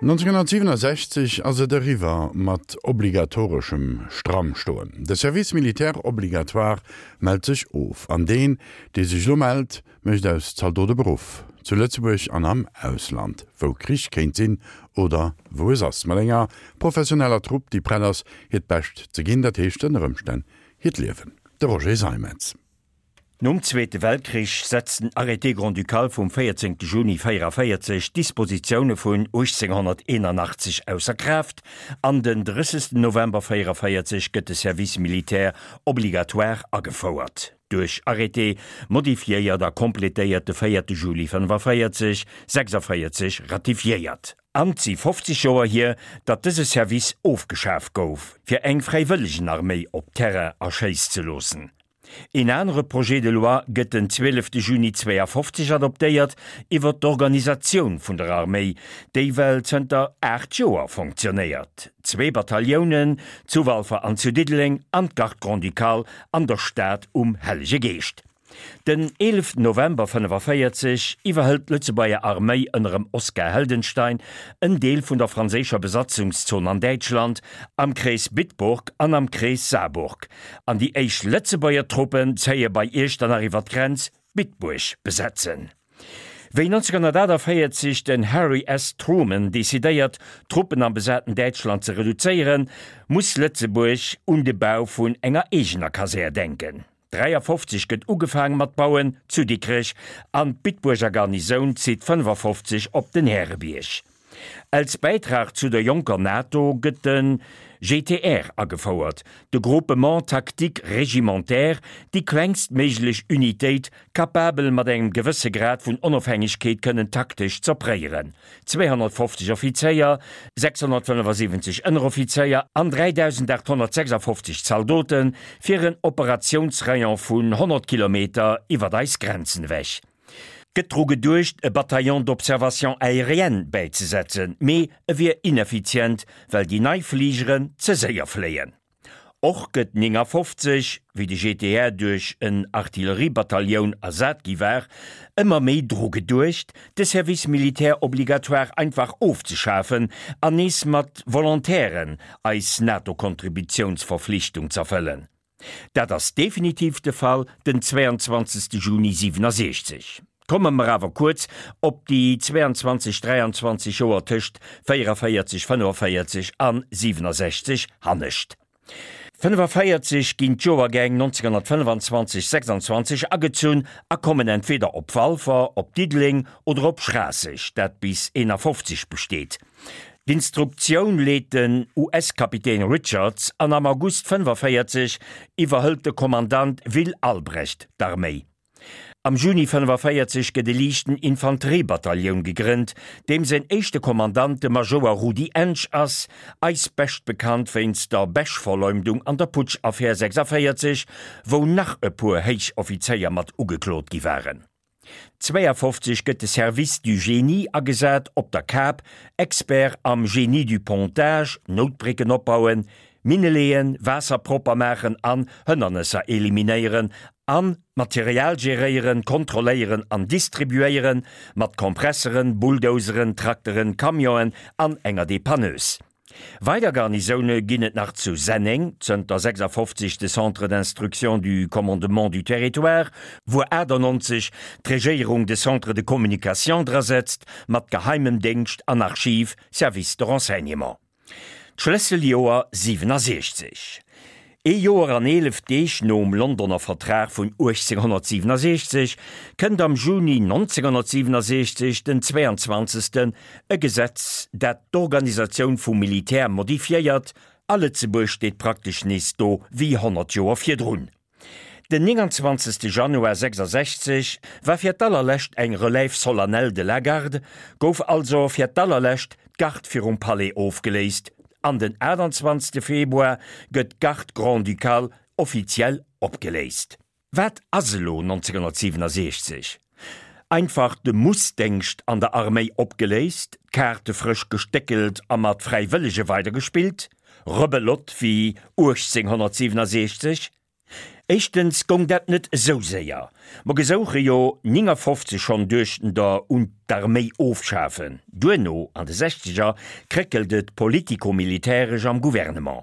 1967 ass et eriwwer mat obligatoreschem Strammstoen. De Service militaire obligatoire mellt sech of. An deen, dee sech elo mellt, mécht aus Zaldot e Beruff. Zu Lëtzebuerg an am Ausland, wou Krich kéint sinn oder wou es ass. Mat enger professioneller Trupp, déi prett ass, hiert Bescht ze ginn, dat heescht ënner Ëmstänn hiert Liewen. De Roger Seimetz. Nom Zweete Weltkrich setzt den Arrêté grand-ducal vum 14 Juni 44 d'Dispositioune vun 1881 ausser Kraaft an den 30 November 44 gëtt de Service militaire obligatoire agefouert, duerch Arrêté modifiéiert a completéiert de 4 Juli 45, 46 ratifiéiert. An 't si 50 Joer hier, datt dëse Service ofgeschaf gouf, fir eng Fräiwëllegenarméi op Terrain erschéiss ze loossen. Een anere Projet de loi gëtt den 12 Juni 52 adoptéiert iwwer d'Organisatioun vun der Arméi, déi well zënter 8 Joer fonctionnéiert. Zwee Bataillonen, zu Walfer an zu Diddeleng, an d'Garde grand-ducale an der Stad um Hellege Geescht. Den 11 November 45 iwwerhëlt d'Lëtzebuerger Arméi ënnerem Oskar Heldenstein en Deel vun der franséischer Besatzungszon an Däitschland, am Krees Bitburg an am Krees Saarburg. An déi éischt Lëtzebuerger Truppen zéie bei Iechternach iwwer d'Grenz Bitburg besetzen. Wéi 1948 den Harry S. Truman decidéiert, d'Truppen am besaten Däitschland ze reduzéieren, muss Lëtzebuerg un de Bau vun enger eegener Kasär denken. 53 gëtt ugefaang mat bauen zu Dikrech an d'Bitbuerger Garnisoun zitt 55 op den Härebierg. Als Bäitrag zu der jonker NATO gëtt de GTR agefouert, de Groupement Tactique Régimentaire, déi klengst méiglech Unitéit, capabel mat engem gewësse Grad vun Onofhängegkeet kënnen taktesch z'opréieren. 250 Offizéier, 675 Ënneroffizéier an 3.856 Zaldote fir en Operatiounsrayon vun 100 Kilometer iwwert eis Grenzen ewech. Gëtt dru geduecht, e Bataillon d'observation aérienne bäizesetzen, mee e wier ineffizient, well déi nei Fligeren ze séier fléien. Och gëtt 59, wéi de GTR duerch en Artilleriebatailloun ersat gi war, ëmmer méi dru geduecht, de Service militaire obligatoire einfach ofzeschafen an nees mat Volontairen eis NATO-Kontributiounsverflichtung z'erfëllen. Dat ass definitiv de Fall den 22. Juni 67. Komme mer awer kuerz op déi 22, 23 Joer tëscht 44, 45 an 67 hannescht. 45 ginn d'Joergäng 1925, 26 agezunn a kommen entweder op Walfer, op Diddeleng oder op Schraasseg, dat bis 51 besteet. D'Instruktioun leet den US-Kapitän Richards an am August 45 iwwerhëlt de Kommandant Will Albrecht d'Arméi. Am Juni 45 gëtt e liichten Infanteriebatailloun gegrënnt, deem säin éischte Kommandant de Majouer Rudi Ensch ass, eis bescht bekannt wéinst der Bech-Verleumdung an der Putsch-Affär 46, wou nach e puer Héichoffizéier mat ugeklot gi waren. 52 gëtt de Service du Génie agesat op der Kap, Expert am Génie du Pontage, Noutbrécken opbauen, Minne leeën, Waasser propper maachen an Hënnernesser eliminéieren an Material geréieren, kontrolléieren an distribuéieren, mat Kompresseren, Bulldozeren, Trakteren, Camionen an enger Dépanneuse. Weider Garnisoune ginn et nach zu Senneng, zënter 56 de Centre d'instruction du commandement du territoire, wuer 98 d'Regéierung de Centre de communication drasetzt, mat geheimem Déngscht an Archiv, Service de renseignement. D'Schlësseljoer 67. Ee Joer an 11 Deeg nom Londoner Vertrag vun 1867 kënnt am Juni 1967, den 22. e Gesetz, dat d'Organisatioun vum Militär modifiéiert, a Lëtzebuerg steet praktesch nees do wéi 100 Joer virdrun. Den 29. Januar 66 war fir d'allerlescht eng Relève solennelle de la Garde, gouf also fir d'allerlescht d'Garde virum Palais ofgeléist an den 28. Februar gëtt d'Garde grand-ducale offiziell opgeléist. Wat ass elo 1967? Einfach de Mussdéngscht an der Arméi opgeléist, d'Kaarte frësch gestéckelt a mat Fräiwëllege weidergespillt? Rebelotte wéi 1867? Éischtens gong dat net esou séier. Mer gesouche jo 59 schonn duechten der un d'Arméi ofschafen. Duerno, an de Sechzeger, kréckelt et politico-militäresch am Gouvernement.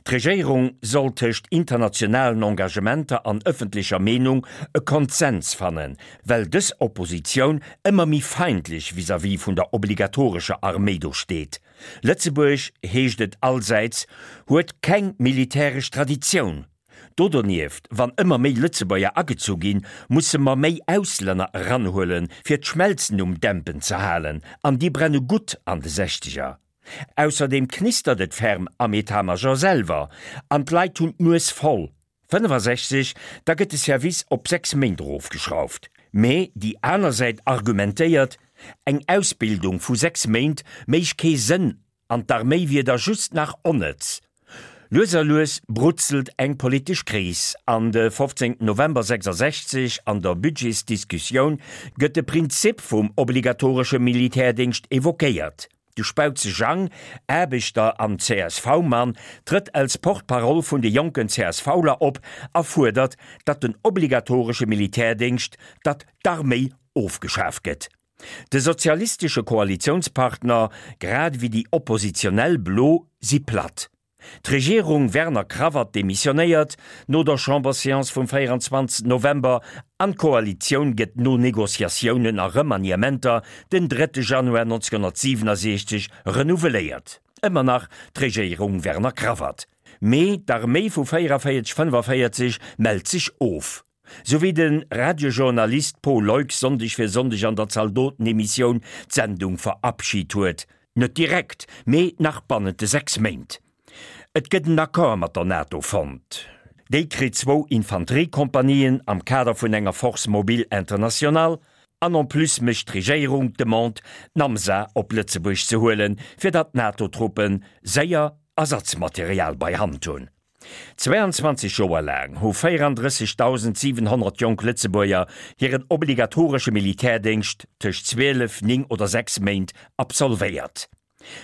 D'Regéierung soll tëscht internationalen Engagementer an ëffentlecher Meenung e Konsens fannen, well dës Oppositioun ëmmer méi feindlech vis-à-vis vun der obligatorescher Arméi do steet. Lëtzebuerg, heescht et allsäits, huet keng militäresch Traditioun. Do donieft, wann ëmmer méi Lëtzebuerger agezu ginn, musse mer méi Auslänner eranhuelen, fir d'Schmelzen um Dämpen ze halen, an déi brenne gutt an de Sechzeger. Ausserdeem knistert et ferm am Etat-Major selwer, an d'Leit hunn d'Nues voll. 65, da gëtt de Service op 6 Méint erofgeschrauft. Mee déi aner Säit argumentéiert, eng Ausbildung vu 6 Méint méich kee Sënn an d'Arméi wier da just nach onnëtz. Lues a lues brutzelt eng politesch Kris an de 15 November 66 an der Budgetsdiskussioun gëtt de Prinzip vum obligatoresche Militärdéngscht evoquéiert. De Spautze Jang, Aarbechter an CSV-Mann, trëtt als Porte-parole vun de jonken CSVler op a fuerdert, datt den obligatoresche Militärdéngscht, datt d'Arméi ofgeschaf gëtt. De sozialistesche Koalitiounspartner, grad ewéi déi oppositionell Blo si platt. D'Regierung Werner Cravat demissionéiert no der Chamberséance vum 24 November an d'Koalitioun gëtt no Negociatiounen a Remaniementer den 3 Januar 1967 renouveléiert. Ëmmer nach d'Regéierung Werner Cravat. Mee d'Arméi vu 44, 45 mellt sech of. Sou wéi de Radiojournalist Paul Leuck Sonndeg fir Sonndeg an der Zaldotenemissioun d'Sendung verabschit huet. Net direkt, mee nach bannent de 6 Méint. Et gëtt en Accord mat der NATO fonnt. Déi kritt zwou Infanteriekompanien am Kader vun enger Force mobile internationale. An en plus mécht d'Regéierung d'Demande, d'Namsa op Lëtzebuerg ze huelen, fir datt d'NATO-Truppe séier Ersatzmaterial bei Hand hunn. 22 Joer laang hu 34.700 jonk Lëtzebuerger hiren obligatoresche Militärdéngscht tëscht 12, 9 oder 6 Méint absolvéiert.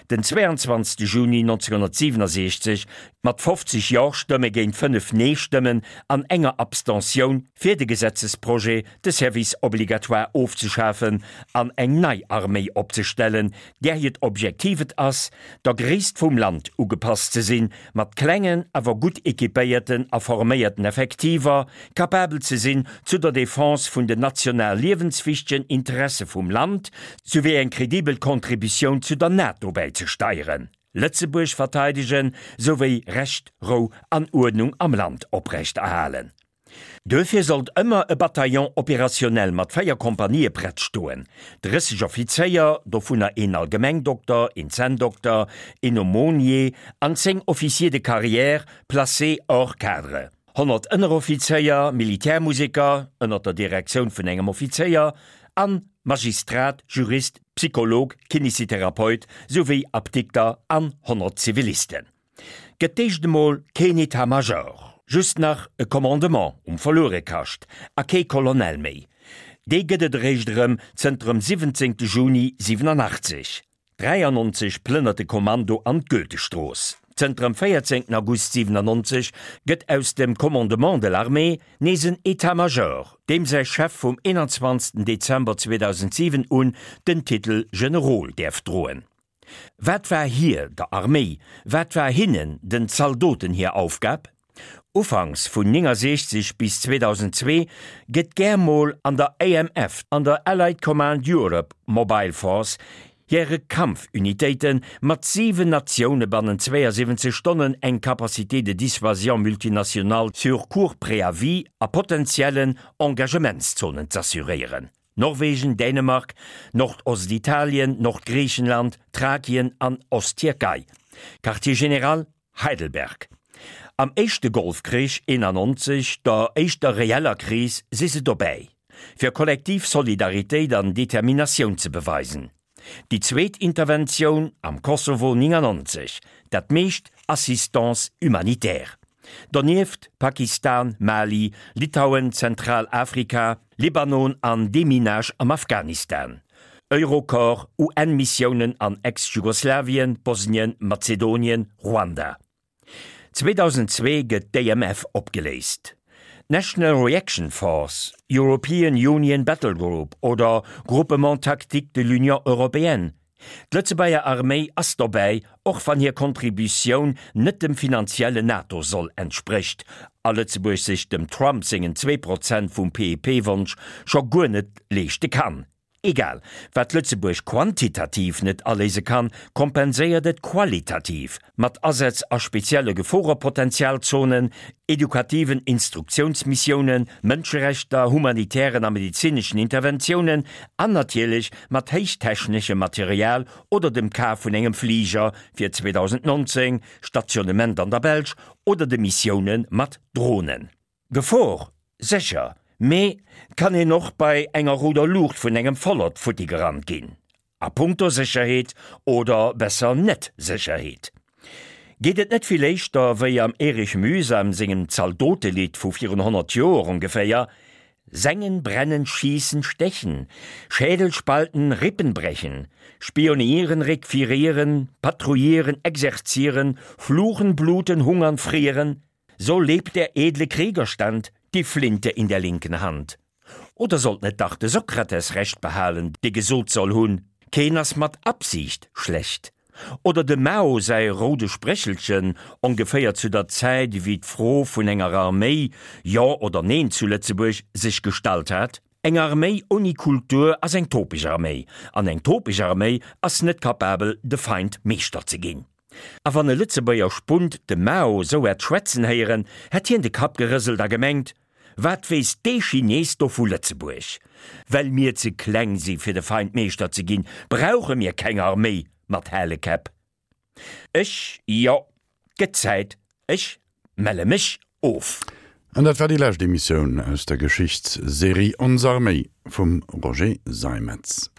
Den 22 Juni 1967 mat 50 Jo-Stëmme géint 5 Nee-Stëmmen an enger Abstentioun fir de Gesetzesprojet, de Service obligatoire ofzeschafen an eng nei Arméi opzestellen, där hiert Objektiv et ass, der Gréisst vum Land ugepasst ze sinn, mat klengen, awer gutt équipéierten a forméierten Effektiver, capabel ze sinn, zu der Defense vun den national liewenswichtegen Interesse vum Land souwéi eng kredibel Contributioun zu der NATO bäizesteieren, Lëtzebuerg verteidegen souwéi Recht, Rou an Uerdnung am Land oprechterhalen. Duerfir sollt ëmmer e Bataillon opérationnel mat 4 Kompanië prett stoen, 30 Offizéier, dovunner een Allgemengdokter, een Zänndokter, een Aumônier an 10 Officiers de carrière placés hors cadre, 100 Ënneroffizéier, Militärmuseker, ënner der Direktioun vun engem Offizéier, an Magistrat, Jurist, Psycholog, Kinesitherapeut souwéi Apdikter an 100 Zivilisten. Gëtt d'éischt emol keen État-major, just nach e Commandement um Verluerekascht a kee Colonel méi. Dee gëtt et eréischt erëm zënter dem 17 Juni 87. 93 plënnert de Kommando an d'Goethestrooss. Zënter dem 14 August 97 gëtt aus dem Commandement de l'armée nees en État-major, deem säi Chef vum 21 Dezember 2007 un den Titel Generol däerf droen. Wat war hir, der Arméi, wat war hinnen, den Zaldoten hir Aufgab? Ufanks vun 69 bis 2002 gëtt gär mol an der AMF, an der Allied Command Europe Mobile Force, hire Kampfunitéite mat 7 Natioune bannent 72 Stonnen eng Capacité de dissuasion multinationale sur court préavis a potentiellen Engagementszonen z'assuréieren. Norwegen, Dänemark, Nordostitalien, Nordgriichenland, Thrakien an Osttierkei. Quartier général, Heidelberg. Am éischte Golfkrich 91, der éischter reeller Kris, si se dobäi, fir kollektiv Solidaritéit an Determinatioun ze beweisen. Déi zweet Interventioun am Kosovo 99, dat meescht Assistance humanitaire. Donieft Pakistan, Mali, Litauen, Zentralafrika, Libanon an Deminage am Afghanistan. Eurocorps, UN-Missiounen an Ex-Jugoslawien, Bosnien, Mazedonien, Ruanda. 2002 gëtt d'AMF opgeléist. D'National Reaction Force, European Union Battle Group oder Groupement tactique de l'Union européenne, D'Lëtzebuerger Arméi ass dobäi, och wann hir Contributioun net dem finanziellen NATO-Soll entsprécht a Lëtzebuerg sech dem Trump sengen 2% vum PIP-Wonsch scho guer net leeschte kann. Egal, wat Lëtzebuerg quantitativ net aléise kann, kompenséiert et qualitativ, mat Asätz a spezielle Geforepotentialzonen, edukativen Instruktiounsmissiounen, Mënscherechter, humanitären a medezineschen Interventiounen an natierlech mat héichtechneschem Material oder dem Kaf vun engem Fliger fir 2019, Stationnement an der Belsch, oder de Missioune mat Dronen. Gefor, sécher, mee 't kann een och bei enger rouder Luucht vun engem Vollert futti gerannt ginn. A punkto Sécherheet, oder besser Net-Sécherheet, geet et net vill éischter wéi am Erich Mühsam sengem Zaldotelidd vu virun 100 Joer ongeféier, Sengen, brennen, schießen, stechen, Schädel spalten, Rippen brechen, spionieren, requirieren, patrouillieren, exerzieren, fluchen, bluten, hungern, frieren, So lebt der edle Kriegerstand, die Flinte in der linken Hand. Oder sollt net dach de Sokrates Recht behalen, dee gesot soll hunn, Keen ass mat Absicht schlecht? Oder dem Mao säi roude Spréchelchen, ongeféier zu der Zäit ewéi d'Fro vun enger Arméi, jo oder neen zu Lëtzebuerg, sech gestallt hat, Eng Arméi ouni Kultur ass eng topeg Arméi, an eng topeg Arméi ass net kapabel de Feind Meeschter ze ginn. A wann e Lëtzebuerger Spunt de Mao sou hätt schwätzen héieren, hätt hien de Kapp gerëselt a gemengt, Wat weess dee Chines do vu Lëtzebuerg? Well mir ze kleng si fir de Feind Meeschter ze ginn, brauche mir keng Arméi mat hale Käpp. Ech, jo, 't gëtt Zäit, ech melle mech of. An dat war déi lescht Emissioun aus der Geschichtsserie Ons Arméi vum Roger Seimetz.